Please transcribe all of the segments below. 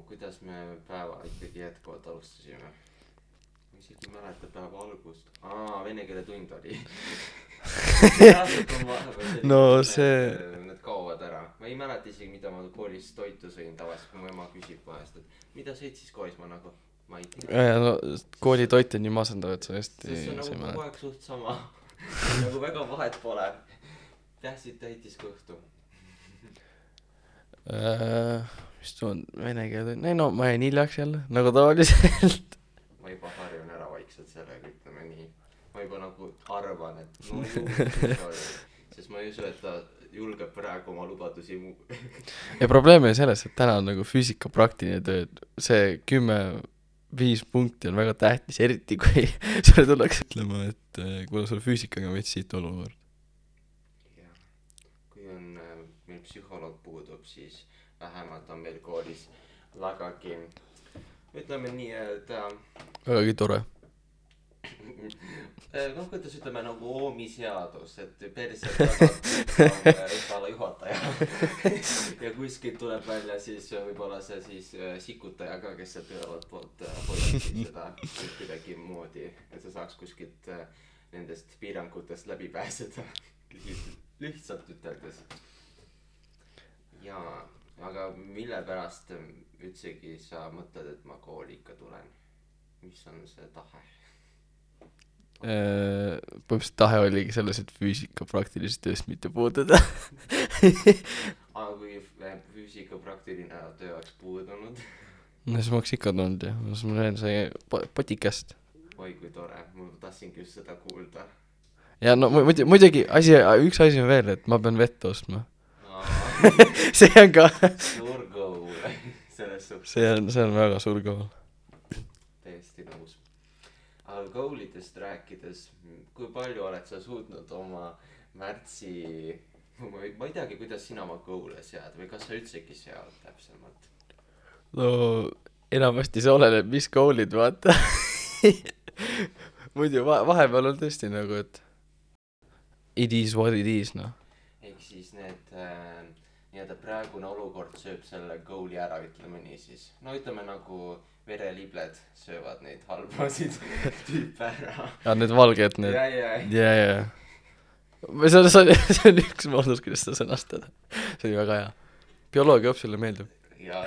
kuidas me päeva ikkagi jätkuvalt alustasime? Ma isegi ei mäleta päeva algust. Vene keele tund oli. No see... Need kaovad ära. Ma ei mäleta isegi, mida ma koolis toitu sõin tavaliselt, kui mu ema küsib vahest, et mida sõid siis koolis, ma nagu, ma ei tea. No, kooli toit on nii masendav, et sa hästi see on nagu kogu aeg suht sama. Nagu väga vahet pole. Tähtsid täitis kõhtu. Mis tuu on vene keele tund? No ma jäin hiljaks jälle, nagu tavaliselt. Ma juba harjun ära vaikselt sellega, ütleme nii. Ma juba nagu arvan, et sest ma ei usu, et ta julgeb praegu oma lubadusi ja probleem on selles, et täna on nagu füüsika praktiline töö. See 10-5 punkti on väga tähtis, eriti kui sulle tullakse ütlema, et kuna sul füüsikaga on veits siit olukord. Jah, kui on meil psühholoog puudub, siis vähemalt on meil koolis vägagi, ütleme nii, et vägagi tore. Kuidas ütleme nagu oomiseadus, et perselt tagab esvala juhataja ja kuskilt tuleb välja siis võib-olla see siis sikutaja ka, kes sealt ühevalt poolt hoiab seda kuidagi moodi, et sa saaks kuskilt nendest piirangutest läbi pääseda lihtsalt üteldes. Jaa, aga mille pärast üldsegi sa mõtled, et ma kooli ikka tulen? Mis on see tahe? Põhimõtteliselt tahe oligi selles, et füüsika praktilisest tööst mitte puududa. Aga kui füüsika praktiline töö oleks puudunud? No siis ma oleks ikka tulnud ja siis ma näen see potikast. Oi kui tore, ma tahtsingi just seda kuulda. Ja no muidugi üks asi on veel, et ma pean vett ostma. See on ka suur goal selles suhtes. See on väga suur goal. Täiesti nõus. Aga goalidest rääkides, kui palju oled sa suutnud oma märtsi, ma ei teagi, kuidas sina oma goal'e sead või kas sa üldsegi sead täpsemalt? No enamasti see oleneb, mis goal'id vaata. Muidu vahepeal on tõesti nagu, et it is what it is, noh. Ehk siis need nii-öelda praegune olukord sööb selle goal'i ära, ütleme nii siis. No ütleme nagu verelibled söövad neid halbasid tüüpe ära. Ja need valged, need. Ja. See on üks moodus, kuidas seda sõnastada. See oli väga hea. Bioloogia õpsile meeldib. Ja.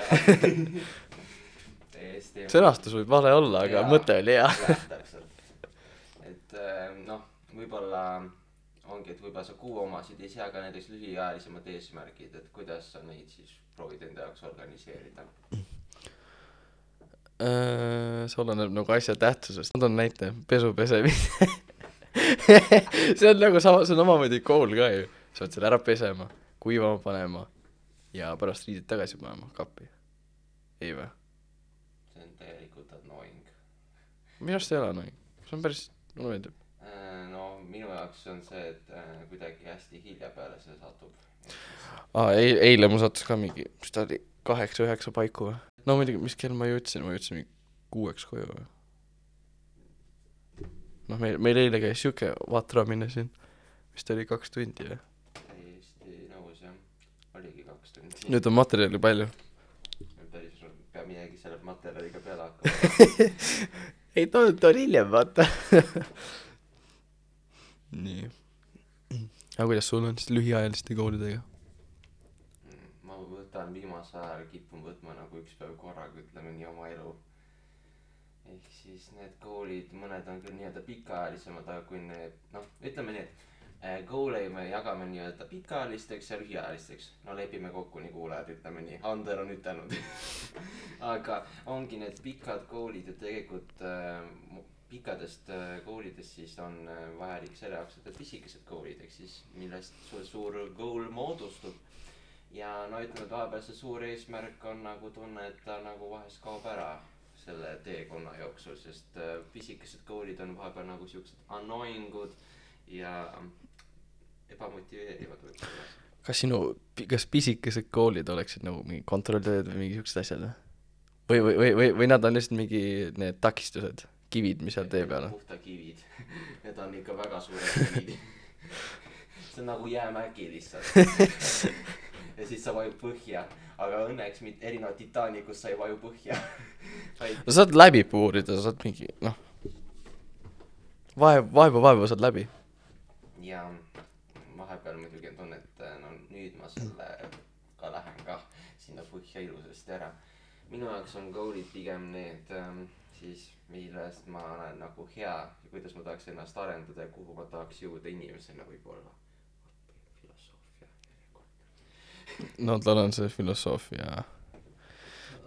Täiesti. Sõnastus võib vale olla, aga mõte oli hea. Täpselt. Et võib-olla ongi, et võib-olla sa kuu omasid ei sea ka näiteks lühiajalisemad eesmärgid, et kuidas sa neid siis proovid enda jaoks organiseerida? See oleneb nagu asja tähtsusest. Ma toon näite, pesu pesemine. See on nagu see on omamoodi goal ka ju. Sa võid selle ära pesema, kuivama panema ja pärast riidid tagasi panema kappi. Ei või? See on tegelikult annoying. Minu arust ei ole annoying. See on päris, mulle meeldib. No minu jaoks on see, et kuidagi hästi hilja peale see satub. Eile mu sattus ka mingi, mis ta oli 8-9 paiku või? No muidugi, mis kell ma jõudsin mingi 6 koju või? Noh, meil eile käis siuke vatramine siin, mis ta oli 2 tundi või? Täiesti nõus jah, oligi 2 tundi. Nüüd on materjali palju. Päris peab midagi selle materjaliga peale hakkama. Ei, ta on hiljem, vaata. Nii. Aga kuidas sul on siis lühiajaliste goalidega? Ma võtan viimase ajal kipun võtma nagu üks päev korraga, ütleme nii oma elu. Ehk siis need goalid, mõned on küll nii-öelda pikaajalisemad, aga kui need, ütleme nii, et goal'e me jagame nii-öelda pikaajalisteks ja lühiajalisteks. No lepime kokku nii kuulajad, ütleme nii. Ander on ütelnud. Aga ongi need pikad goal'id ja tegelikult pikkadest goal'idest siis on vajalik selle jaoks, et pisikesed goal'id, ehk siis millest suur goal moodustub. Ja ütleme, et vahepeal see suur eesmärk on nagu tunne, et ta nagu vahest kaob ära selle teekonna jooksul, sest pisikesed goal'id on vahepeal nagu siuksed annoyingud ja ebamotiveerivad võib-olla. Kas pisikesed goal'id oleksid nagu mingi kontrolltööd või mingi siuksed asjad? Või nad on lihtsalt mingi need takistused, kivid, mis seal tee peal on? Puhta kivid. Need on ikka väga suured kivid. See on nagu jäämägi lihtsalt. Ja ja siis sa vajud põhja, aga õnneks erinevalt Titanicust sa ei vaju põhja vaid no saad läbi puurida, saad mingi, noh, vaevu saad läbi. ja vahepeal muidugi on tunne, et no nüüd ma selle ka lähen ka sinna põhja ilusasti ära. Minu jaoks on goal'id pigem need siis, millest ma olen nagu hea ja kuidas ma tahaks ennast arendada ja kuhu ma tahaks jõuda inimesena võib-olla. Filosoofia järjekord. No tal on see filosoofia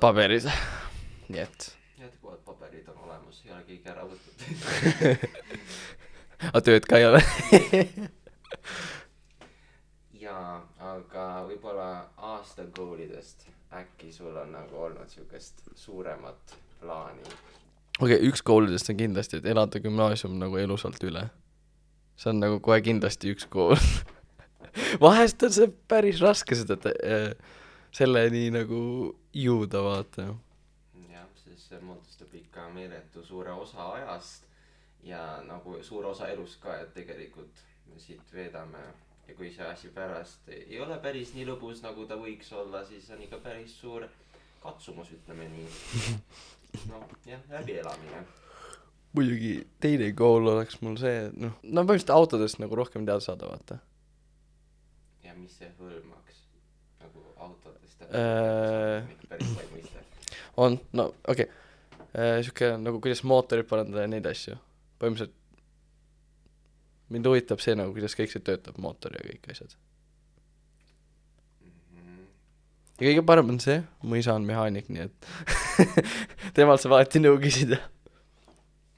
paberis. Nii et. Jätkuvad paberid on olemas, ei ole keegi ära võtnud. A tööd ka ei ole. Jaa, aga võib-olla aasta goal'idest äkki sul on nagu olnud siukest suuremat plaani. Okei, üks koolidest on kindlasti, et elada gümnaasium nagu elusalt üle. See on nagu kohe kindlasti üks kool. Vahest on see päris raske seda selleni nagu jõuda, vaata. Jah, siis see moodustab ikka meeletu suure osa ajast ja nagu suur osa elust ka, et tegelikult me siit veedame ja kui see asi pärast ei ole päris nii lõbus, nagu ta võiks olla, siis on ikka päris suur katsumus, ütleme nii. No, jah, läbielamine. Muidugi teine kool oleks mul see, noh, no põhimõtteliselt autodest nagu rohkem teada saada, vaata. Ja mis see hõlmaks? Nagu autodest päris lai mõiste. On, no okei. Siuke nagu kuidas mootorid parandada ja neid asju. Põhimõtteliselt mind huvitab see nagu, kuidas kõik see töötab, mootor ja kõik asjad. Ja kõige parem on see, mu isa on mehaanik, nii et temalt sa vaati nõu küsida.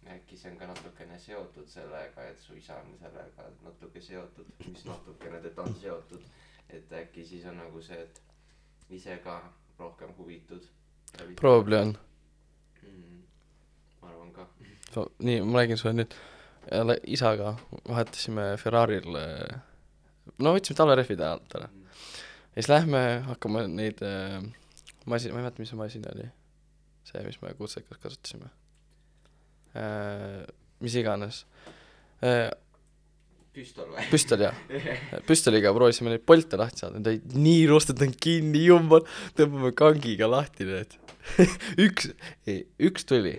Äkki see on ka natukene seotud sellega, et su isa on sellega natuke seotud, mis natukene teda on seotud, et äkki siis on nagu see, et ise ka rohkem huvitud. Probably on. Ma arvan ka. Nii, ma räägin sulle nüüd. Isaga vahetasime Ferraril, no võtsime talverehvid ajalt ära. Ja siis lähme hakkame neid masin, ma ei mäleta, mis see masin oli. See, mis me kutsekas kasutasime. Mis iganes. Püstol või? Püstol, jah. Püstoliga proovisime neid polte lahti saada. Need olid nii rostetud kinni, jumbal. Tõmbame kangiga lahti need. üks tuli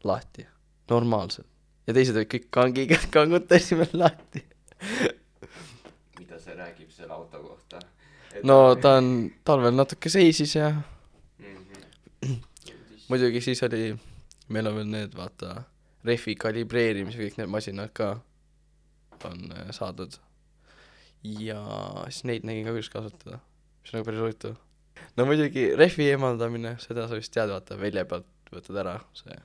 lahti. Normaalselt. Ja teised olid kõik kangiga, kangutasime lahti. Mida see räägib selle auto kohta? No ta on talvel natuke seisis ja muidugi siis oli, meil on veel need, vaata, refi kalibreerimis ja kõik need masinad ka on saadud. Ja siis neid nägin ka kuidas kasutada, mis on nagu päris huvitav. No muidugi refi eemaldamine, seda sa vist tead, vaata, välja pealt võtad ära see.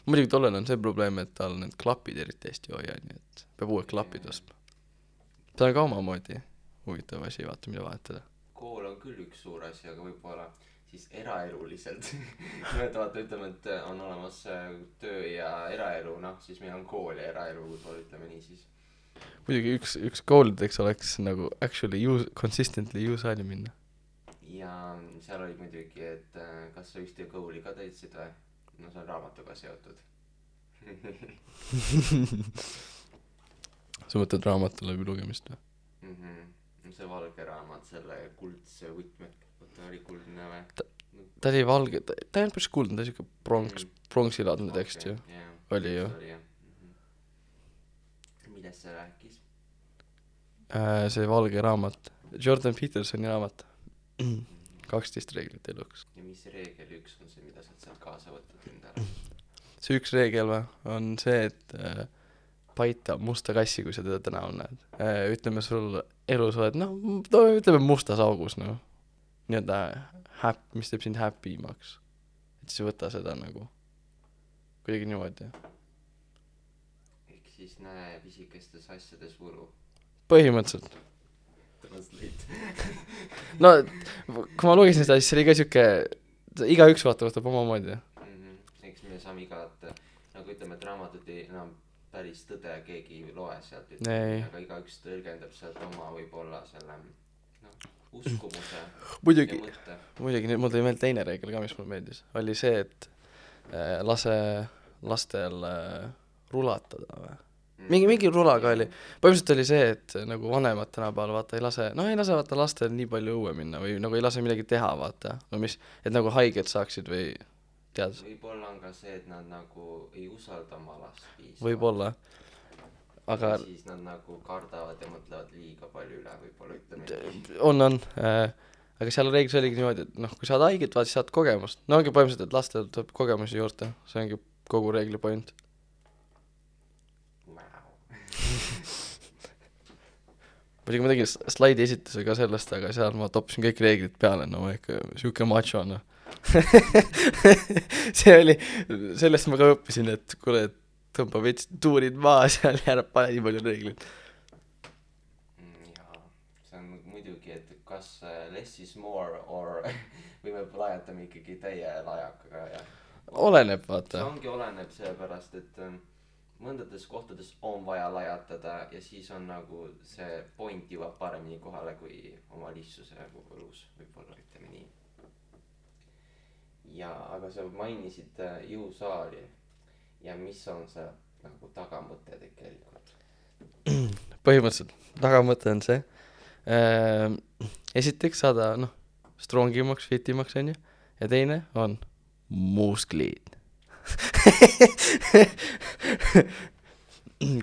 Muidugi tollel on see probleem, et tal need klapid eriti hästi hoia, nii et peab uued klapid ostma. See on ka omamoodi huvitav asi, vaata, mida vahetada. Kool on küll üks suur asi, aga võib-olla siis eraeluliselt. Vaata, ütleme, et on olemas töö ja eraelu, noh, siis meil on kool ja eraelu, võib-olla ütleme nii siis. Muidugi üks koolideks oleks nagu actually consistently saali minna. Ja seal oli muidugi, et kas sa ühte kooli ka täitsid või? No see on raamatuga seotud. Sa mõtled raamatu läbi lugemist või? See valge raamat, selle kuldse võtmed, ta oli kuldne või? Ta oli valge, ta ei olnud päris kuldne, ta oli siuke pronksilaadne tekst ju. Oli ju. Millest see rääkis? See valge raamat, Jordan Petersoni raamat. 12 reeglit eluks. Ja mis reegel üks on see, mida sa sealt kaasa võtad endale? See üks reegel on see, et paita musta kassi, kui sa teda tänaval näed. Ütleme sul elus oled, ütleme mustas augus, nii-öelda mis teeb sind happy imaks. Et siis võta seda nagu kuidagi niimoodi. Ehk siis näe pisikestes asjades võlu. Põhimõtteliselt. No, kui ma lugesin seda, siis see oli ka siuke, igaüks võtab oma moodi. Eks me saame igat, nagu ütleme, et raamatut enam päris tõde keegi loe sealt, aga igaüks tõlgendab sealt oma võib-olla selle uskumuse muidugi, nüüd mul tõi meil teine reegel ka, mis mulle meeldis. Oli see, et lase lastel rulatada või? mingi rulaga oli , põhimõtteliselt oli see , et nagu vanemad tänapäeval vaata ei lase vaata lastel nii palju õue minna või nagu ei lase midagi teha vaata , no mis , et nagu haiged saaksid või tead , võib-olla on ka see , et nad nagu ei usalda oma last piisavalt . võib-olla , aga siis nad nagu kardavad ja mõtlevad liiga palju üle , võib-olla ütleme nii . on , aga seal reeglis oligi niimoodi , et noh , kui saad haiget , vaata siis saad kogemust , no ongi põhimõtteliselt , et lastel tuleb kogemusi juurde , see ongi kogu reegli point . muidugi ma tegin slaidi esituse ka sellest , aga seal ma toppisin kõik reeglid peale , no ma ikka siuke macho , noh . see oli , sellest ma ka õppisin , et kuule , et tõmba veits tuurid maha seal ja ära pane nii palju reegleid . jaa , see on muidugi , et kas less is more or või me lajatame ikkagi täie lajakaga ja oleneb , see vaata . ongi , oleneb sellepärast , et mõndades kohtades on vaja lajatada ja siis on nagu see point jõuab paremini kohale kui oma lihtsuse elus , võib-olla ütleme nii . ja aga sa mainisid jõusaali ja mis on see nagu tagamõte tegelikult ? põhimõtteliselt tagamõte on see , esiteks saada noh , strongimaks , fitimaks onju , ja teine on musklid .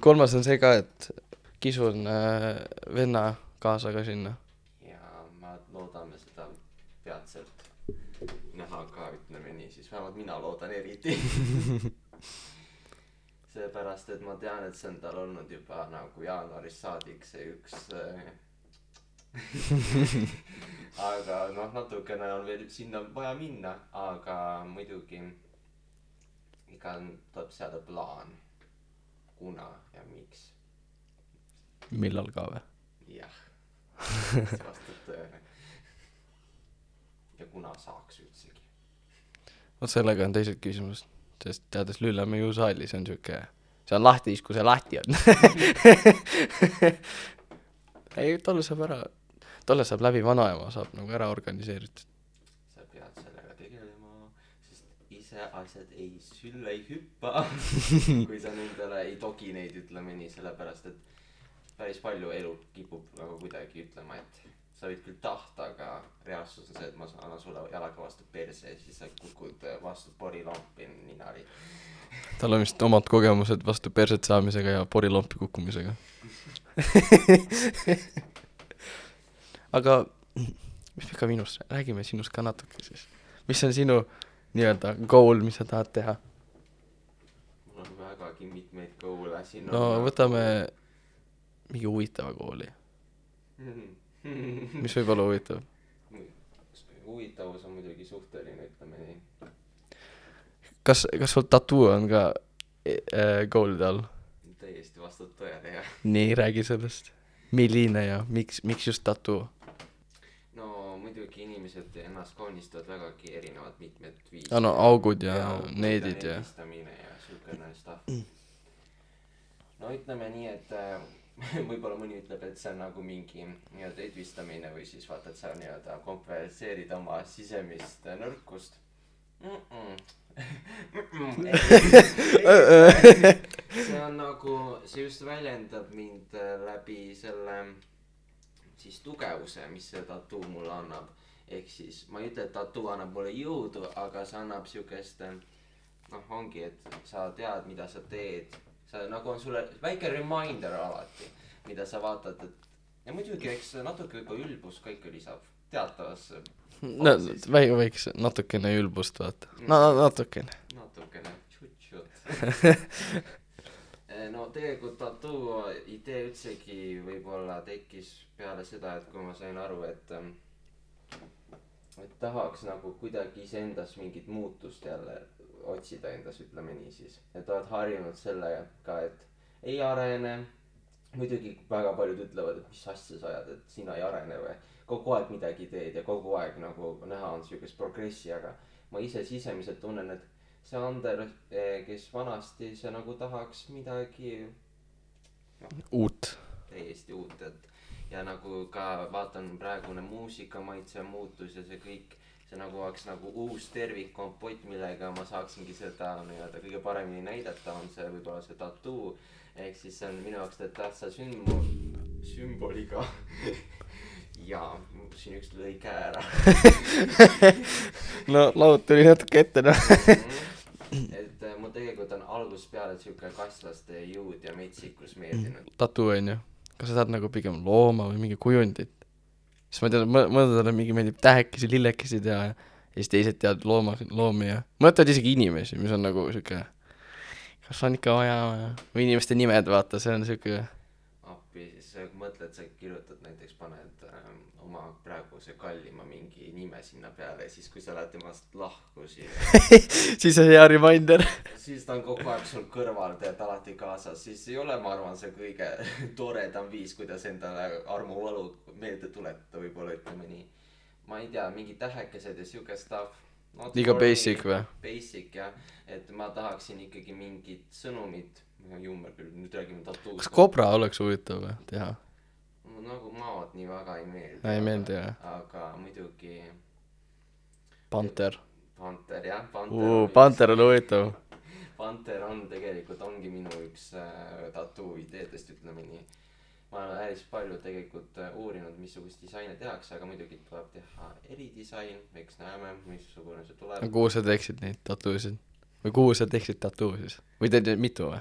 kolmas on see ka , et kisun venna kaasa ka sinna . ja ma loodame seda peatselt näha ka , ütleme nii , siis vähemalt mina loodan eriti . seepärast , et ma tean , et see on tal olnud juba nagu jaanuarist saadik see üks aga noh , natukene on veel sinna vaja minna , aga muidugi iga tuleb seada plaan , kuna ja miks . millal ka või ? jah , see vastab tõele . ja kuna saaks üldsegi . vot sellega on teised küsimused , sest teades Lüllemäe jõusaali , see on siuke , see on lahti siis , kui see lahti on . ei , tolle saab läbi vanaema , saab nagu ära organiseeritud . sa pead sellega tegelema , sest ise asjad ei sülle ei hüppa . kui sa nendele ei togi neid , ütleme nii , sellepärast et päris palju elu kipub nagu kuidagi ütlema , et sa võid küll tahta , aga reaalsus on see , et ma annan sulle jalaga vastu perse ja siis sa kukud vastu porilampi ninari . tal on vist omad kogemused vastu perset saamisega ja porilompi kukkumisega . aga mis me ka minust , räägime sinust ka natuke siis . mis on sinu nii-öelda goal , mis sa tahad teha ? mul on vägagi mitmeid goal'e siin . no võtame mingi huvitava kooli , mis võib olla huvitav . huvitavus on muidugi suhteline , ütleme nii . kas sul tattoo on ka goal'ide all ? täiesti vastab tõele , jah . nii , räägi sellest . milline ja miks just tattoo ? no muidugi inimesed ennast kaunistavad vägagi erinevad mitmed viisid . no augud ja needid ja . ja siukene stuff . no ütleme nii , et võib-olla mõni ütleb , et see on nagu mingi nii-öelda edvistamine või siis vaata , et sa nii-öelda kompenseerid oma sisemist nõrkust . see on nagu , see just väljendab mind läbi selle siis tugevuse , mis see tattoo mulle annab . ehk siis ma ei ütle , et tattoo annab mulle jõudu , aga see annab siukest noh , ongi , et sa tead , mida sa teed . sa nagu on sulle väike reminder alati , mida sa vaatad , et ja muidugi , eks natuke juba ülbus ka ikka lisab teatavasse . no väikse natukene ülbust vaata . no natukene . natukene tšut-tšut . no tegelikult tattoo idee üldsegi võib-olla tekkis peale seda , et kui ma sain aru , et tahaks nagu kuidagi iseendas mingit muutust jälle otsida endas , ütleme nii siis . et oled harjunud sellega , et ei arene . muidugi väga paljud ütlevad , et mis asja sa ajad , et sina ei arene või . kogu aeg midagi teed ja kogu aeg nagu näha on siukest progressi , aga ma ise sisemiselt tunnen , et see Ander , kes vanasti see nagu tahaks midagi uut . täiesti uut , et ja nagu ka vaatan praegune muusikamaitse muutus ja see kõik , see nagu oleks nagu uus tervikkompott, millega ma saaksingi seda nii-öelda kõige paremini näidata, on see võib-olla see tattoo. Ehk siis see on minu jaoks tähtsa sümboliga ja siin üks lõi käe ära no laud tuli natuke ette, noh. et mul tegelikult on algusest peale siuke kasslaste jõud ja metsikus meeldinud. Tattoo on ju, kas sa tahad nagu pigem looma või mingi kujundit? Siis ma tean, mõndadele mingi meeldib tähekesi, lillekesid ja siis teised teavad loomi ja mõtlevad isegi inimesi, mis on nagu siuke, kas on ikka vaja või inimeste nimed, vaata, see on siuke appi, siis mõtled, sa kirjutad näiteks, paned oma praeguse kallima mingi nime sinna peale ja siis kui sa lähed temast lahku siis on hea reminder. siis ta on kogu aeg sul kõrval, tead alati kaasas, siis ei ole, ma arvan, see kõige toredam viis, kuidas endale armuvalu meelde tuletada, võib-olla ütleme nii. Ma ei tea, mingi tähekesed ja siuke stuff. Liiga basic või? Basic jah, et ma tahaksin ikkagi mingit sõnumit, jummer küll, nüüd räägime tattoost. Kas kobra oleks huvitav või teha? Nagu maad nii väga ei meeldi. Ei meeldi jah. Aga muidugi Panter. Panter jah, Panter on huvitav. Panter on tegelikult, ongi minu üks tattoo ideedest, ütleme nii. Ma olen päris palju tegelikult uurinud, missugust disaine tehakse, aga muidugi tuleb teha eridisain, eks näeme, missugune see tuleb. Kuhu sa teeksid neid tattoosid? Või kuhu sa teeksid tattoo siis? Või teed mitu või?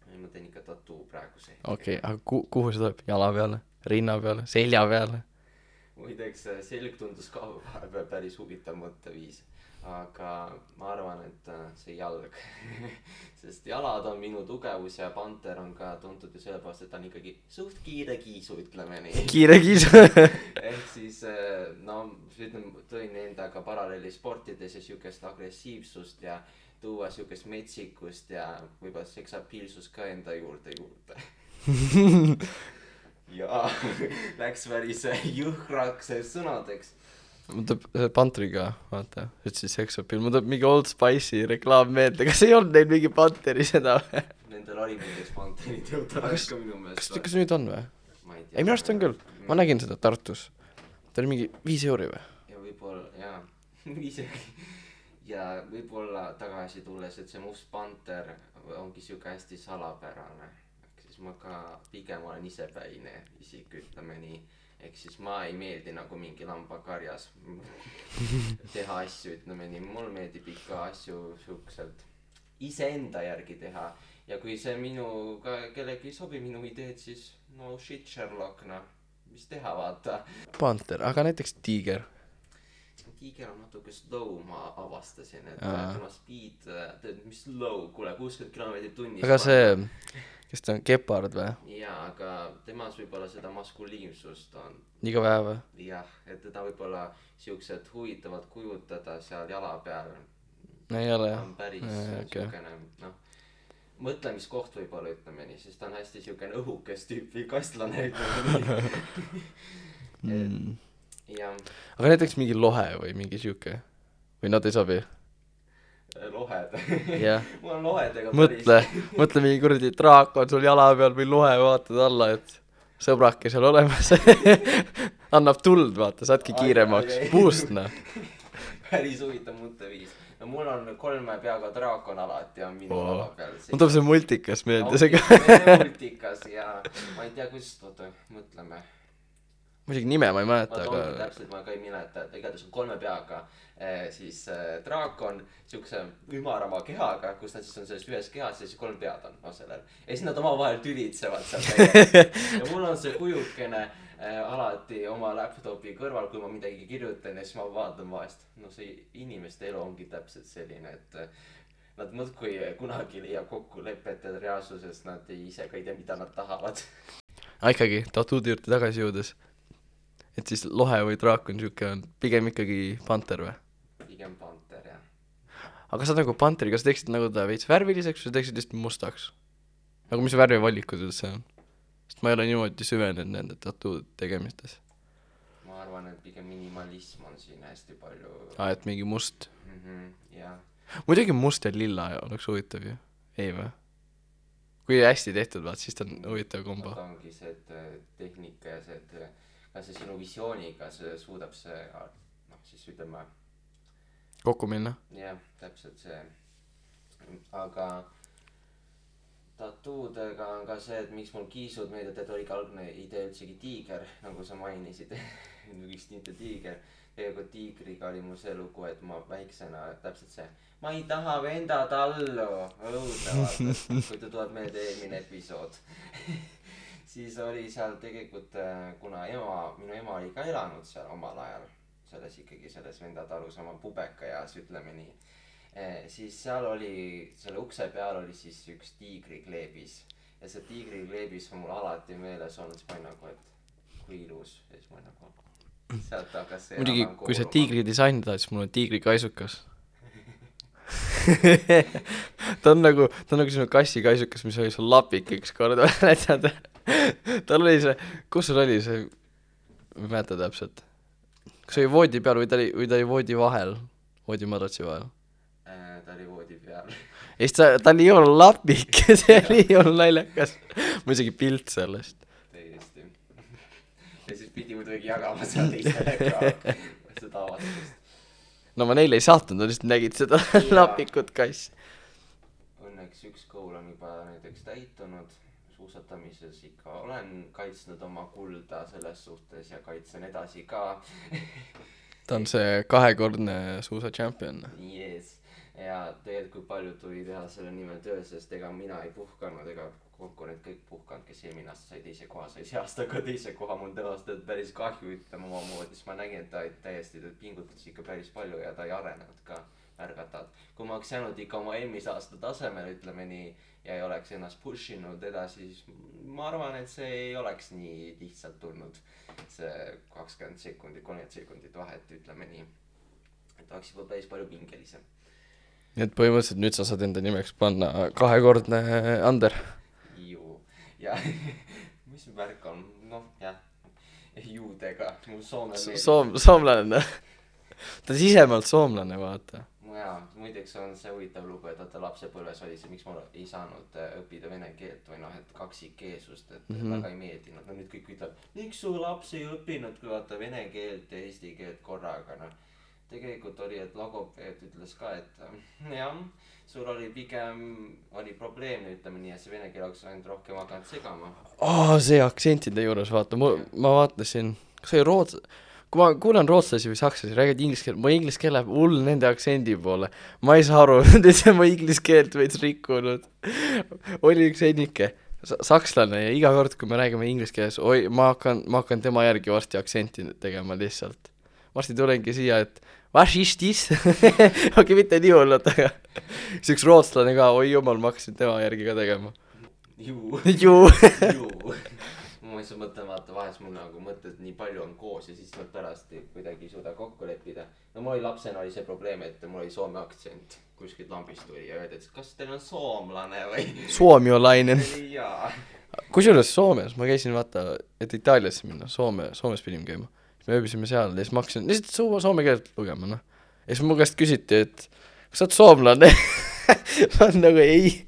Ei, ma teen ikka tattoo praegu see. Okei, aga kuhu see tuleb? Jala peale? Rinna peale? Selja peale? Muideks selg tundus ka päris huvitav mõtteviis. Aga ma arvan, et see jalg sest jalad on minu tugevus ja Panter on ka tuntud ju sellepärast, et ta on ikkagi suht kiire kiisu, ütleme nii. Kiire kiisu ehk siis no ütleme, tõin endaga paralleeli sportides ja siukest agressiivsust ja tuua siukest metsikust ja võib-olla seksapiilsust ka enda juurde ja läks päris jõhkraks sõnadeks. Mul tuleb Pantriga, vaata, ütlesid seksapiil, mul tuleb mingi Old Spice'i reklaam meelde, kas ei olnud neil mingi Panteri seda või? Nendel oli mingi Panterid jõutakse ka minu meelest. Kas nüüd on või? Ma ei tea. Ei, minu arust on küll, ma nägin seda Tartus. Ta oli mingi 5 euri või? Ja võib-olla, jaa, 5 euri. Ja võib-olla tagasi tulles, et see must Panter ongi siuke hästi salapärane. Ehk siis ma ka pigem olen isepäine isik, ütleme nii. Ehk siis ma ei meeldi nagu mingi lambakarjas teha asju, ütleme nii. Mul meeldib ikka asju siukselt iseenda järgi teha. Ja kui see minu ka kellegi sobi minu ideed, siis no shit Sherlock, noh, mis teha, vaata. Panter, aga näiteks tiiger. Tiiger on natuke slow, ma avastasin, et tema speed, mis slow, kuule, 60 km tunnis. Aga see, kes ta on, Gepard või? Jaa, aga temas võib-olla seda maskuliimsust on. Liiga vähe või? Jah, et teda võib-olla siuksed huvitavad kujutada seal jala peal. Ei ole jah. On päris siukene, noh, mõtlemiskoht võib-olla, ütleme nii, sest ta on hästi siukene õhukest tüüpi kastlane, ütleme nii. Ja. Aga näiteks mingi lohe või mingi siuke või nad ei sobi? Lohed yeah. Mul on lohedega mõtle mingi kuradi draak on sul jala peal või lohe, vaatad alla, et sõbrake seal olemas annab tuld, vaata, saadki kiiremaks boost, noh. Päris huvitav mõtteviis. No mul on 3 peaga draakon alati on minu lava peal. Mul tuleb see multikas meelde see ka multikas ja ma ei tea, kus toota, mõtleme. Muidugi nime ma ei mäleta, aga täpselt ma ka ei mäleta, et igatahes on 3 peaga siis draakon siukse ümarama kehaga, kus nad siis on selles ühes kehas ja siis 3 pead on sellel. Ja siis nad omavahel tülitsevad seal ja mul on see kujukene alati oma laptopi kõrval, kui ma midagi kirjutan ja siis ma vaatan vahest. No see inimeste elu ongi täpselt selline, et nad mõtkui kunagi leiab kokkulepet reaalsuses, nad ise ka ei tea, mida nad tahavad. Ikkagi, tatuudi juurde tagasi jõudes. Et siis lohe või draak on siuke, on pigem ikkagi Panter või? Pigem Panter, jah. Aga sa nagu Panteri, kas teeksid nagu ta veits värviliseks või teeksid lihtsalt mustaks? Nagu mis värvivalikud üldse on? Sest ma ei ole niimoodi süvenenud nende tattoo tegemistes. Ma arvan, et pigem minimalism on siin hästi palju. Et mingi must. Jah. Muidugi must ja lilla oleks huvitav ju. Ei või? Kui hästi tehtud, vaat, siis ta on huvitav kombo. Ta ongi see tehnika ja see, et kas see sinu visiooniga see suudab see, noh siis ütleme kokku minna. jah, täpselt see. Aga tattoodega on ka see, et miks mul kiisud meeldib, et oligi algne idee üldsegi tiiger, nagu sa mainisid. Üks tinte tiiger. Tegelikult tiigriga oli mul see lugu, et ma väiksena täpselt see ma ei taha venda tallu õudne vaata, kui ta tuleb meelde eelmine episood. Siis oli seal tegelikult, kuna minu ema oli ka elanud seal omal ajal selles venda talus oma pubeka eas, ütleme nii. Siis seal oli, selle ukse peal oli siis üks tiigrikleebis ja see tiigrikleebis on mul alati meeles olnud, siis ma olin nagu, et kui ilus ja siis ma olin nagu sealt hakkas see muidugi, kui sa tiigri disaini tahad, siis mul on tiigrikaisukas. ta on nagu sinu kassikaisukas, mis oli sul lapik üks kord. Tal oli see, kus sul oli see, ma ei mäleta täpselt. Kas oli voodi peal või ta oli voodi vahel, voodi madratsi vahel? Ta oli voodi peal. Ja siis ta oli ju lapik, see oli ju naljakas. Mul isegi pilt sellest. Täiesti. Ja siis pidi muidugi jagama seal teistele ka seda avastust. No ma neile ei saatnud, nad lihtsalt nägid seda lapikut kass. Õnneks üks kool on juba näiteks täitunud. Suusatamises ikka olen kaitsnud oma kulda selles suhtes ja kaitsen edasi ka. Ta on see 2-kordne suusa champion. Yes. Ja tegelikult kui palju tuli teha selle nimel töö, sest ega mina ei puhkanud, ega konkurent kõik puhkanud, kes eelmine aasta sai teise koha, sai see aasta ka teise koha, mul tõenäoliselt päris kahju ütlema oma moodi, siis ma nägin, et ta täiesti pingutas ikka päris palju ja ta ei arenenud ka märgatavalt. Kui ma oleks jäänud ikka oma eelmise aasta tasemel, ütleme nii, ja ei oleks ennast pushinud edasi, siis ma arvan, et see ei oleks nii lihtsalt tulnud see 20 sekundit, 30 sekundit vahet, ütleme nii, et oleks juba päris palju pingelisem. Nii et põhimõtteliselt nüüd sa saad enda nimeks panna 2-kordne Ander. Ju. Ja mis värk on? Noh, jah. Juudega. Mul soomlane. Ta on sisemalt soomlane, vaata. Jaa, muideks on see huvitav lugu, et ta lapsepõlves oli see, miks ma ei saanud õppida vene keelt või noh, et kaksikkeelsust, et väga ei meeldinud. No nüüd kõik ütleb, miks su laps ei õppinud kui vaata vene keelt ja eesti keelt korraga, noh. Tegelikult oli, et logopeed ütles ka, et jah, sul oli pigem probleem, ütleme nii, et see vene keel oleks ainult rohkem hakanud segama. See aktsentide juures, vaata, ma vaatasin, kas oli kui ma kuulan rootslasi või sakslasi, räägid inglise keelt, mu inglise keel läheb hull nende aktsendi poole. Ma ei saa aru, et ma inglise keelt veits rikkunud. Oli üks ennike, sakslane ja iga kord, kui me räägime inglise keeles, ma hakkan tema järgi varsti aktsenti tegema lihtsalt. Varsti tulengi siia, et was ist this? Okei, mitte nii hullud, aga see üks rootslane ka, oi jumal, ma hakkasin tema järgi ka tegema. Ju. Ma ei saa mõtlema, vaata vahest mul nagu mõtted nii palju on koos ja siis nad pärast kuidagi ei suuda kokku leppida. No mul oli lapsena oli see probleem, et mul oli soome aktsent kuskilt lambist tuli ja öeldi, et kas teil on soomlane või? Suomiolainen. Jaa. Kusjuures Soomes, ma käisin vaata, et Itaaliasse minna, Soomes pidime käima. Me ööbisime seal ja siis ma hakkasin lihtsalt soome keelt lugema, noh. Ja siis mu käest küsiti, et kas sa oled soomlane? Ma on nagu ei.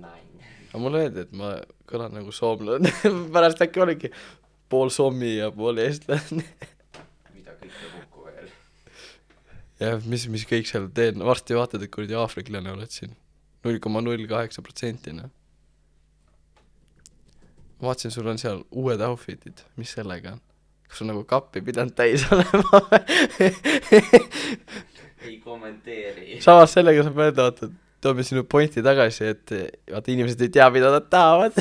Aga mulle öeldi, et ma kõlan nagu soomlane. Pärast äkki oligi pool sommi ja pool eestlane. Mida kõike kokku veel. Ja mis kõik seal teen. Varsti vaatad, et kuradi aafriklane oled siin. 0,08%. Ma vaatasin, sul on seal uued outfitid. Mis sellega on? Kas sul nagu kappi pidanud täis olema? Ei kommenteeri. Samas sellega saab öelda, vaata, toome sinu pointi tagasi, et vaata inimesed ei tea, mida nad tahavad.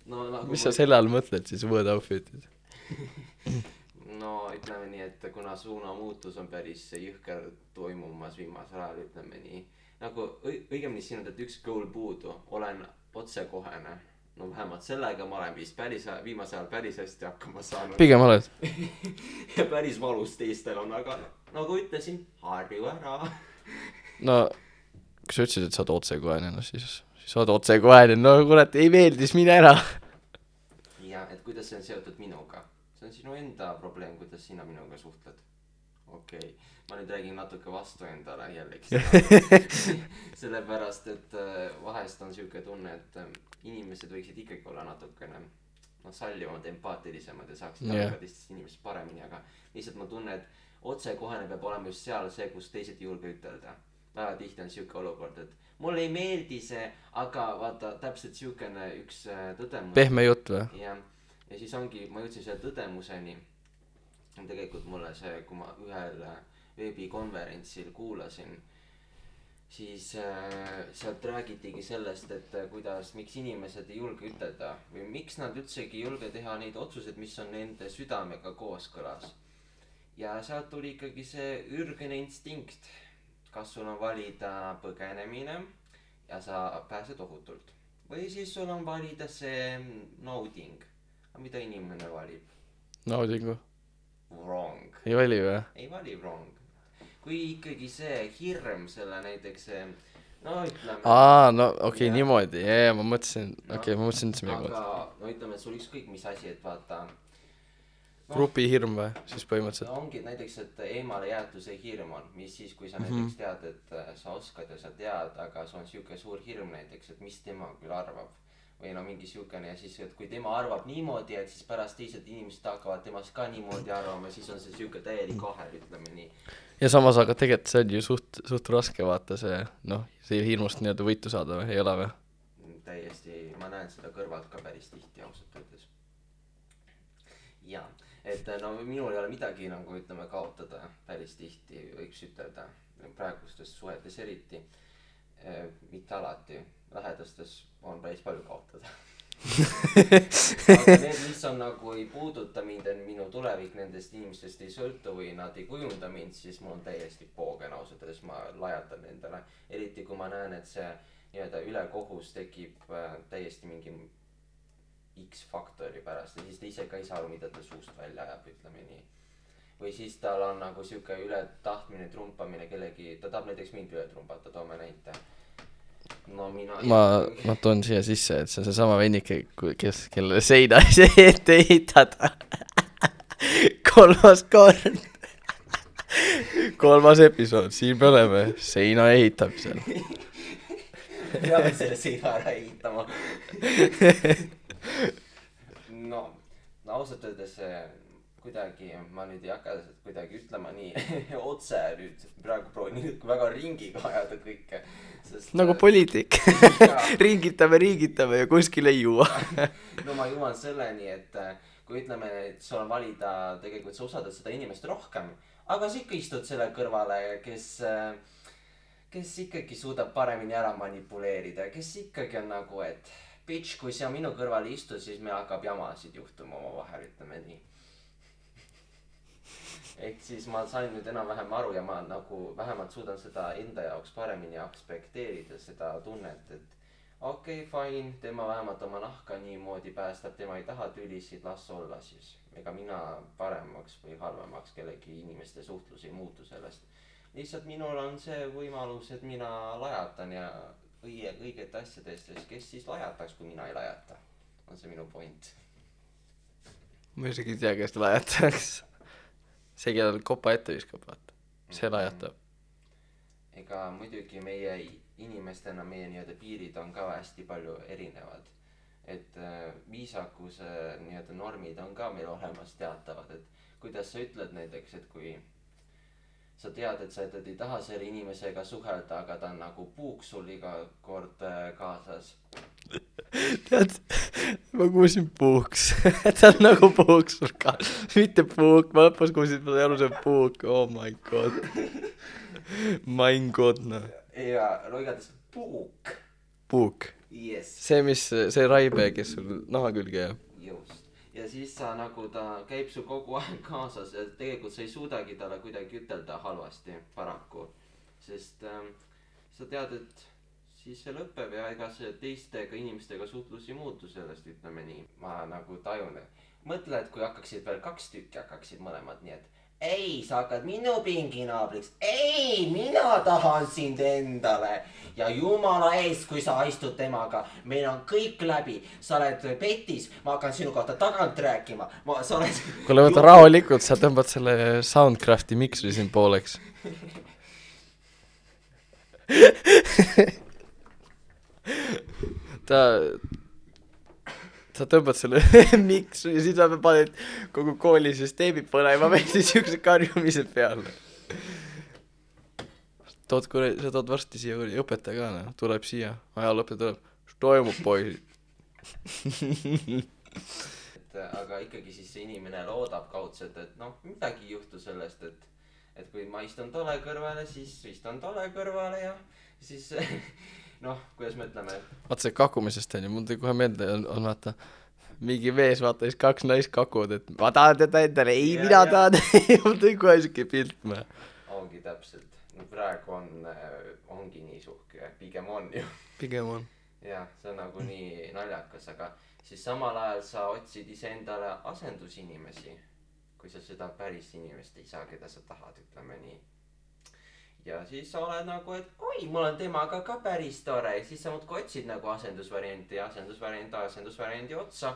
No, nagu mis sa selle all mõtled siis, uued outfitid? No ütleme nii, et kuna suunamuutus on päris jõhker toimumas viimasel ajal, ütleme nii. Nagu õigemini siin on, et üks goal puudu, olen otsekohene. No vähemalt sellega ma olen vist viimase ajal päris hästi hakkama saanud. Pigem oled. Ja päris valus teistel on, aga nagu ütlesin, harju ära. No, kui sa ütlesid, et sa oled otsekohene, no siis sa oled otsekohene, no kurat, ei meeldis, mine ära. Ja, et kuidas see on seotud minuga? See on sinu enda probleem, kuidas sina minuga suhtled. Okei, ma nüüd räägin natuke vastu endale jällegi. Sellepärast, et vahest on siuke tunne, et inimesed võiksid ikkagi olla natukene sallivamad, empaatilisemad ja saaksid Jah. aru ka teistest inimesest paremini, aga lihtsalt ma tunnen, et otsekohene peab olema just seal see, kus teised ei julge ütelda. Väga tihti on siuke olukord, et mulle ei meeldi see, aga vaata täpselt siukene üks tõdemus. Pehme jutt või? jah, ja siis ongi, ma jõudsin selle tõdemuseni. Tegelikult mulle see, kui ma ühel veebikonverentsil kuulasin, siis sealt räägitigi sellest, et kuidas, miks inimesed ei julge ütelda või miks nad üldsegi ei julge teha neid otsuseid, mis on nende südamega kooskõlas. Ja sealt tuli ikkagi see ürgene instinkt. Kas sul on valida põgenemine ja sa pääsed ohutult või siis sul on valida see nauding. Aga mida inimene valib? Naudingu. Wrong. Ei vali või? Ei vali wrong. Kui ikkagi see hirm selle näiteks see, no ütleme. No okei, niimoodi. Ja, ma mõtlesin, ma mõtlesin üldse midagi. Aga no ütleme, et sul ükskõik mis asi, et vaata. Grupi hirm või? Siis põhimõtteliselt. Ongi näiteks, et eemale jäetuse hirm on, mis siis, kui sa näiteks tead, et sa oskad ja sa tead, aga sul on siuke suur hirm näiteks, et mis tema küll arvab. Või no mingi siukene ja siis, et kui tema arvab niimoodi, et siis pärast teised inimesed hakkavad temast ka niimoodi arvama, siis on see siuke täielik ahel, ütleme nii. Ja samas, aga tegelikult see on ju suht raske vaata see, see hirmust nii-öelda võitu saada või, ei ole või? Täiesti, ma näen seda kõrvalt ka päris tihti ausalt öeldes. Ja, et no minul ei ole midagi nagu ütleme kaotada päris tihti, võiks ütelda praegustes suhetes eriti, mitte alati, lähedastes on päris palju kaotada. Aga need, mis on nagu ei puuduta mind, minu tulevik nendest inimestest ei sõltu või nad ei kujunda mind, siis mul on täiesti poogen ausalt öeldes, ma lajatan nendele. Eriti kui ma näen, et see nii-öelda ülekohus tekib täiesti mingi X-faktori pärast ja siis ta ise ka ei saa aru, mida ta suust välja ajab, ütleme nii. Või siis tal on nagu siuke üle tahtmine trumpamine kellegi, ta tahab näiteks mind üle trumpata, toome näite. No ma toon siia sisse, et see on seesama vennike, kellele seina ette ehitada. Kolmas episood, siin me oleme seina ehitamisel. Peame selle seina ära ehitama. No ausalt öeldes kuidagi, ma nüüd ei hakka kuidagi ütlema nii otse nüüd, praegu proovin nüüd väga ringiga ajada kõike. Nagu poliitik. Ringitame ja kuskil ei juua. No ma jõuan selleni, et kui ütleme, et sul on valida, tegelikult sa usaldad seda inimest rohkem, aga sa ikka istud selle kõrvale, kes ikkagi suudab paremini ära manipuleerida, kes ikkagi on nagu, et bitch, kui sa minu kõrval istud, siis me hakkab jamasid juhtuma oma vahel, ütleme nii. Ehk siis ma sain nüüd enam-vähem aru ja ma nagu vähemalt suudan seda enda jaoks paremini aspekteerida seda tunnet, et okei, fine, tema vähemalt oma nahka niimoodi päästab, tema ei taha tülisid, las olla siis. Ega mina paremaks või halvemaks kellegi inimeste suhtlus ei muutu sellest. Lihtsalt minul on see võimalus, et mina lajatan ja õigete asjadest, kes siis lajataks, kui mina ei lajata. On see minu point. Ma isegi ei tea, kes lajataks. See, kellel kopa ette viskab, vaata. See lajatab. Ega muidugi meie inimestena, meie nii-öelda piirid on ka hästi palju erinevad. Et viisakuse nii-öelda normid on ka meil olemas teatavad, et kuidas sa ütled näiteks, et kui sa tead, et sa ei taha selle inimesega suhelda, aga ta on nagu puuk sul iga kord kaasas. Tead, ma kuulsin puuks. Ta on nagu puuk sul ka. Mitte puuk, ma lõpus kuulsin, ma sai aru see puuk. Oh my god. My god, no. Ja loigades puuk. Puuk. Yes. See raibe, kes sul naha külge jääb. Just. Ja siis sa nagu ta käib sul kogu aeg kaasas ja tegelikult sa ei suudagi talle kuidagi ütelda halvasti paraku. Sest sa tead, et siis see lõpeb ja ega see teistega inimestega suhtlus ei muutu sellest, ütleme nii. Ma nagu tajun, mõtle, et kui hakkaksid veel 2 tükki, hakkaksid mõlemad nii, et ei, sa hakkad minu pinginaabriks, ei, mina tahan sind endale ja jumala eest, kui sa istud temaga, meil on kõik läbi, sa oled petis, ma hakkan sinu kohta tagant rääkima, sa oled... Kuule, võta rahulikult, sa tõmbad selle Soundcrafti miksri siin pooleks. Ta sa tõmbad selle miksu ja siis sa paned kogu koolisüsteemi põlema või siis siukse karjumise peale. Sa tood varsti siia õpetaja ka, noh, tuleb siia, ajalooõpetaja tuleb, mis toimub, poisid? aga ikkagi siis see inimene loodab kaudselt, et noh, midagi ei juhtu sellest, et kui ma istun tolle kõrvale, siis istun tolle kõrvale ja siis noh, kuidas me ütleme, et vaata see kakumisest on ju, mul tuli kohe meelde on vaata mingi mees, vaata siis 2 naist kakuvad, et ma tahan teda endale, ei Ja, mina ja. tahan mul tuli kohe siuke pilt me. ongi täpselt, no praegu ongi nii suhke, pigem on ju. Pigem on. jah, see on nagu nii naljakas, aga siis samal ajal sa otsid iseendale asendusinimesi, kui sa seda päris inimest ei saa, keda sa tahad, ütleme nii. ja siis sa oled nagu, et oi, mul on temaga ka päris tore, ja siis sa muudkui otsid nagu asendusvarianti otsa.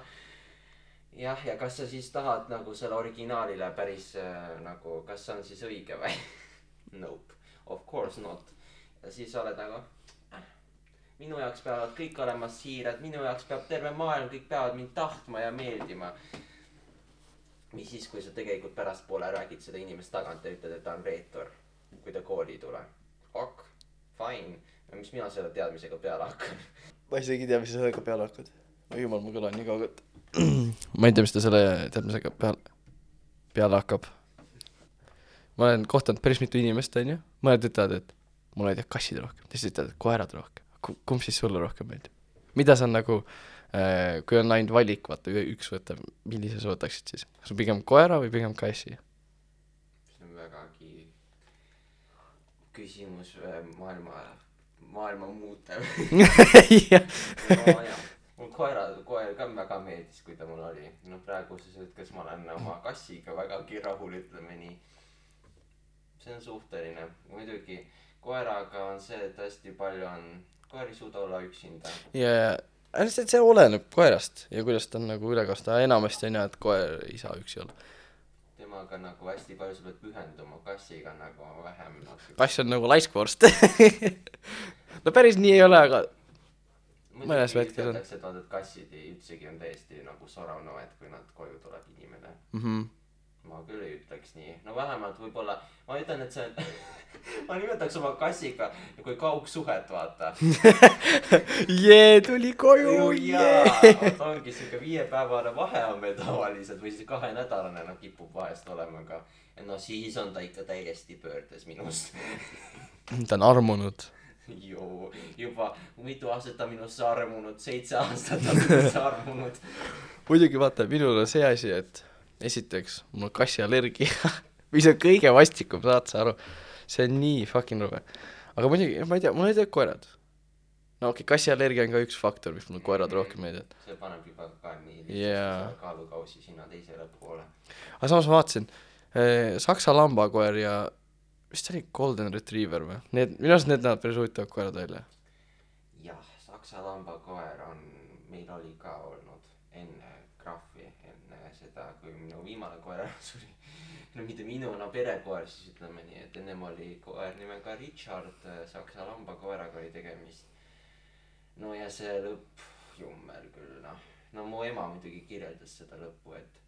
jah, ja kas sa siis tahad nagu selle originaalile päris nagu, kas see on siis õige või? Nope, of course not. ja siis oled nagu minu jaoks peavad kõik olema siirad, minu jaoks peab terve maailm, kõik peavad mind tahtma ja meeldima. mis siis, kui sa tegelikult pärastpoole räägid seda inimest tagant ja ütled, et ta on reetur, kui ta kooli ei tule. Ok, fine. mis mina selle teadmisega peale hakkan? ma isegi ei tea, mis sa sellega peale hakkad. Jumal, mu kõla on nii kaugelt. ma ei tea, mis ta selle teadmisega peale hakkab. ma olen kohtanud päris mitu inimest, on ju. mõned ütlevad, et mulle ei tea kassid rohkem, teised ütlevad, et koerad rohkem. Kumb siis sulle rohkem meeldib? Mida sa nagu, kui on ainult valik, vaata, üks võtta, millise sa võtaksid siis? Kas on pigem koera või pigem kassi? see on vägagi küsimus maailma muutev. no jah, mul koer ka väga meeldis, kui ta mul oli. no praeguses hetkes ma olen oma kassiga vägagi rahul, ütleme nii. see on suhteline. muidugi koeraga on see, et hästi palju on koer ei suuda olla üksinda. ja see oleneb koerast ja kuidas ta on nagu ülekasta. enamasti on jah, et koer ei saa üksi olla. temaga nagu hästi palju sa pead pühenduma, kassiga nagu vähem. kass on nagu laiskvorst. no päris nii ei ole, aga mõnes vetkes on. et vaata, et kassid üldsegi on täiesti nagu soravnoed, kui nad koju tuleb inimene. ma küll ei ütleks nii. no vähemalt võib-olla ma ütlen, et see on ma nimetaks oma kassiga kui kaugsuhet, vaata. Tuli koju, ongi siuke 5-päevane vahe on meil tavaliselt või siis 2-nädalane, no kipub vahest olema ka. no siis on ta ikka täiesti pöördes minust. ta on armunud. juba mitu aastat ta minusse armunud, 7 aastat on minusse armunud. muidugi vaata, minul on see asi, et esiteks, mul on kassiallergia, mis on kõige vastikum, saad sa aru, see on nii fucking rube. aga muidugi, ma ei tea, mul ei tea koerad. no okei, kassiallergia on ka üks faktor, mis mul koerad rohkem meeldib. see paneb juba ka nii kaalukausi sinna teisele poole. aga samas ma vaatasin, saksa lambakoer ja vist oli golden retriever või? Minu arust need näevad päris huvitavad koerad välja. jah, saksa lambakoer on, meil oli ka olnud enne Graffi, enne seda, kui minu viimane koer suri. no mitte minu, no perekoer siis ütleme nii, et ennem oli koer nimega Richard, saksa lambakoeraga oli tegemist. no ja see lõpp, jummel küll, no mu ema muidugi kirjeldas seda lõppu, et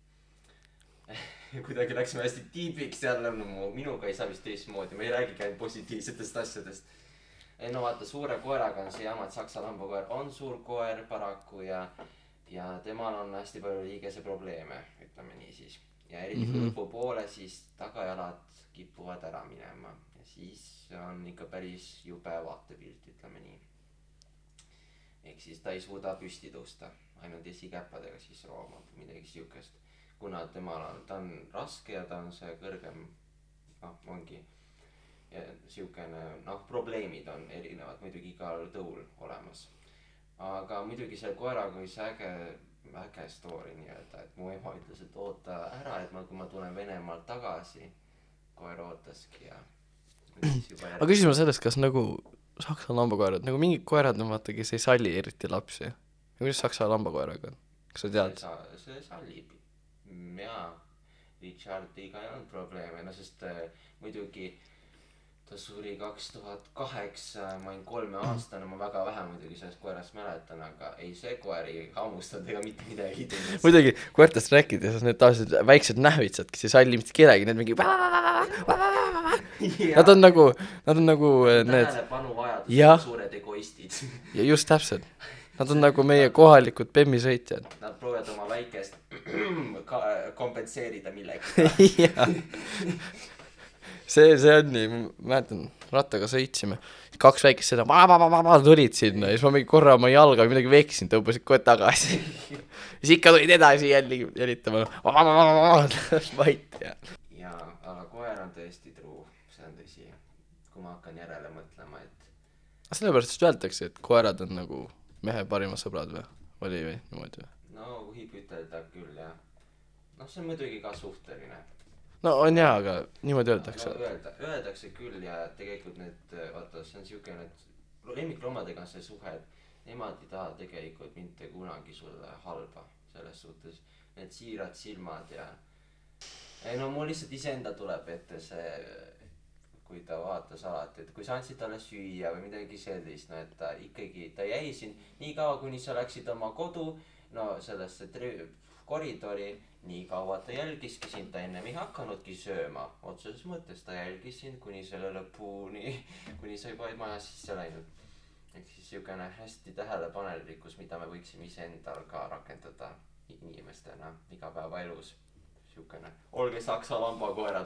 kuidagi läksime hästi tiibiks jälle, no minuga ei saa vist teistmoodi, ma ei räägigi ainult positiivsetest asjadest. no vaata, suure koeraga on see jama, et saksa lambakoer on suur koer paraku ja temal on hästi palju liigese probleeme, ütleme nii siis. ja eriti kui lõpupoole, siis tagajalad kipuvad ära minema ja siis on ikka päris jube vaatepilt, ütleme nii. ehk siis ta ei suuda püsti tõusta, ainult esikäppadega siis roomab midagi siukest. kuna ta on raske ja ta on see kõrgem, ongi ja siukene, probleemid on erinevad muidugi igal tõul olemas. aga muidugi selle koeraga oli see äge story nii-öelda, et mu ema ütles, et oota ära, et kui ma tulen Venemaalt tagasi, koer ootaski ja aga küsime sellest, kas nagu saksa lambakoerad, nagu mingid koerad on vaata, kes ei salli eriti lapsi. ja kuidas saksa lambakoeraga on? kas sa tead? see sallib. jaa, Richardiga ei olnud probleeme, sest muidugi ta suri 2008, ma olin 3-aastane, ma väga vähe muidugi sellest koerast mäletan, aga ei, see koer ei hammustanud ega mitte midagi teinud. muidugi koertest rääkides, need tavaliselt väiksed nähvitsad, kes ei salli mitte kedagi, need mingi nad on nagu need tähelepanuvajadus Jah. suured egoistid. ja just täpselt, nad on nagu meie kohalikud bemmisõitjad. Nad proovivad oma väikest kompenseerida millega. jah, see on nii, ma mäletan, rattaga sõitsime, 2 väikest seda tulid sinna ja siis ma mingi korra oma jalga või midagi veksin, tõubasid kohe tagasi. siis ikka tulid edasi jälitama, vait ja. Jaa, aga koer on tõesti truu, see on tõsi. Kui ma hakkan järele mõtlema, et sellepärast just öeldakse, et koerad on nagu mehe parimad sõbrad või? Oli või niimoodi või? no võib ütelda küll, jah. Noh, see on muidugi ka suhteline. No on jaa, aga niimoodi öeldakse. No öeldakse küll ja tegelikult need, vaata, see on siuke, et lemmikloomadega on see suhe, et nemad ei taha tegelikult mitte kunagi sulle halba selles suhtes. Need siirad silmad ja ei no mul lihtsalt iseenda tuleb ette see, kui ta vaatas alati, et kui sa andsid talle süüa või midagi sellist, no et ta ikkagi, ta jäi siin nii kaua, kuni sa läksid oma kodu, no sellesse koridori, nii kaua ta jälgiski sind, ta ennem ei hakanudki sööma, otseses mõttes ta jälgis sind kuni selle lõpuni, kuni sa juba maja sisse läinud. Ehk siis siukene hästi tähelepanelikkus, mida me võiksime iseendal ka rakendada inimestena igapäevaelus. Siukene, olge saksa lambakoerad.